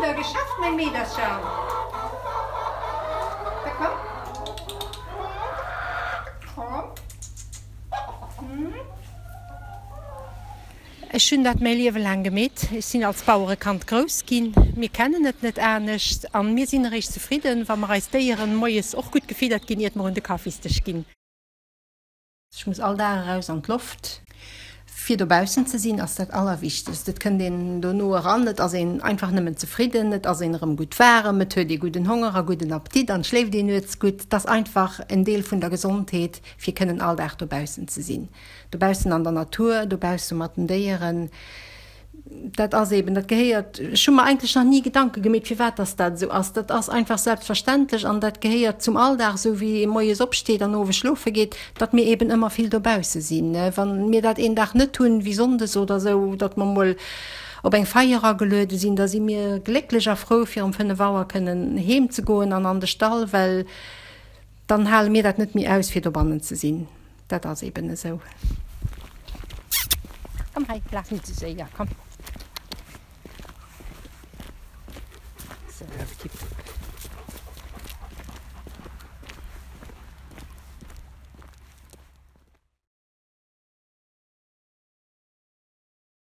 de da geschafft, meng Meedercher? Da komm. Komm. Ech hunn dat mäi Liewe laang gemeet. Ech sinn als Bauerekand grouss ginn. Mir kennen et net anescht an mir sinn eréischt zefridden, wa mer eis Déieren moies och gutt gefiddert ginn, iert mer un de Kaffisdësch ginn. Ech muss all Dag eraus an d'Loft. Fir dobaussen ze sinn ass dat Allerwichtegst. Et kënnt een dono eran, et ass een einfach nëmmen zefridden, et ass een erëm gutt waarem, et huet ee gudden Honger a gudden Appetit an schléift een nuets gutt. Et ass einfach en Deel vun der Gesondheet, fir kënnen all Dag dobaussen ze sinn. Dobaussen an der Natur, dobausse mat den Déieren, dat ass eben, dat gehéiert, ech hu mer eigentlech nach ni Gedanke gemeet, firwat dass dat esou ass. Dat ass einfach selbstverständlech an dat gehéiert zum Alldag, esou wéi ee moies opsteet an owes schlofe geet, datt mir eben ëmmer vill dobausse sinn. Wa mir dat een Dag net hunn, wéi sonndes oder esou, datt mer mol op eng Feier ageluede sinn, da si mir glécklech a frou, fir um 5 Auer kënnen heem ze goen an an de Stall, well dann hale mir dat net méi aus, fir dobannen ze sinn. Dat ass eben esou. Komm hei, laf net esou séier, komm.